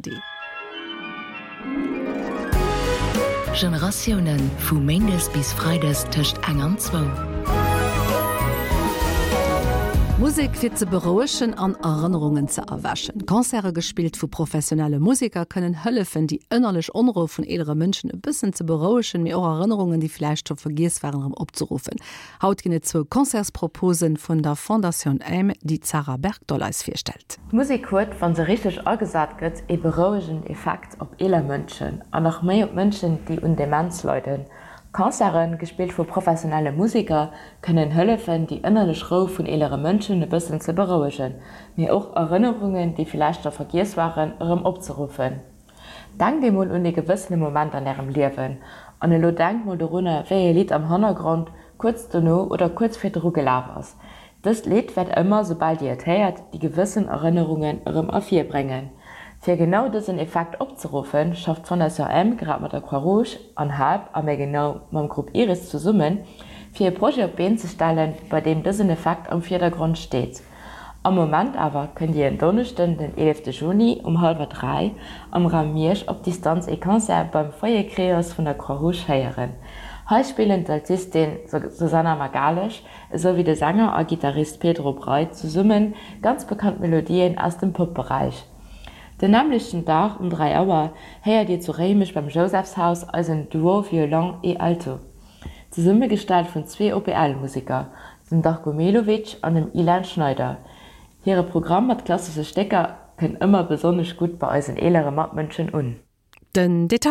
ARD. Generatiounen, vu méindes bis freides tëscht eng an zwou. Musek fir ze berouegen an Erënnerungen ze erwächen. Concerte gespillt vu professionelle Museker kënnen hëllefen, déi ënnerlech Onrou vun eelere Mënschen e bëssen ze berouegen, mee och Erënnerungen, déi vläicht scho vergiess waren, erëm opzeruffen. Haut ginn et zwou Concertsproposen vun der Fondatioun Aime, déi d'Sarah Bergdoll eis virstellt. D'Musek huet, wa se richteg agesat gëtt, ee berouegenden Effekt op eeler Mënschen an nach méi op Mënschen, déi un Demenz leiden. Concerten, gespillt vu professionelle Museker, kënnen hëllefen, déi ënnerlech Rou vun eelere Mënschen e bëssen ze berouegen, mee och Erënnerungen, déi villäicht scho vergiess waren, erëm opzeruffen. Denkt emol un ee gewëssene Moment an ärem Liewen. An elo denkt mol dorunner, wéi ee Lidd am Hannergrond kuerz dono oder kuerz virdru gelaf ass. Dëst Lidd wäert ëmmer, soubal dir et héiert, déi gewëssen Erënnerungen erëm ervirbréngen. Fir genau dësen Effekt opzeruffen, schafft d'Fondation Aime grad mat der Croix-Rouge an Help a méi genau mam Grupp Iris zesummen, fir e Projet op d'Been ze stellen, bei deem dësen Effekt am Virdergrond steet. Am Moment awer kënnt Dir en Donneschden den 11 Juni um hallwer 3 am Raum Miersch op Distanz ee Concert beim Foyer Creos vun der Croix-Rouge héieren. Hei spillen d'Altistin Susanna Magalhães esou wéi de Sänger a Gittarist Pedro Breit zesumme ganz bekannt Melodien aus dem Pop-Beräich. Den nämmlechten Dag um 3 Auer héiert Dir zu Réimech beim Jousefshaus eisen Duo Violon et Alto. Zesummegestallt vun zwee OPL-Museker, dem Darko Melovic an dem Ilan Schneider. Hire Programm mat klassesche Stécker kënnt ëmmer besonnesch gutt bei eisen eelere Matmënschen un. Den Detail.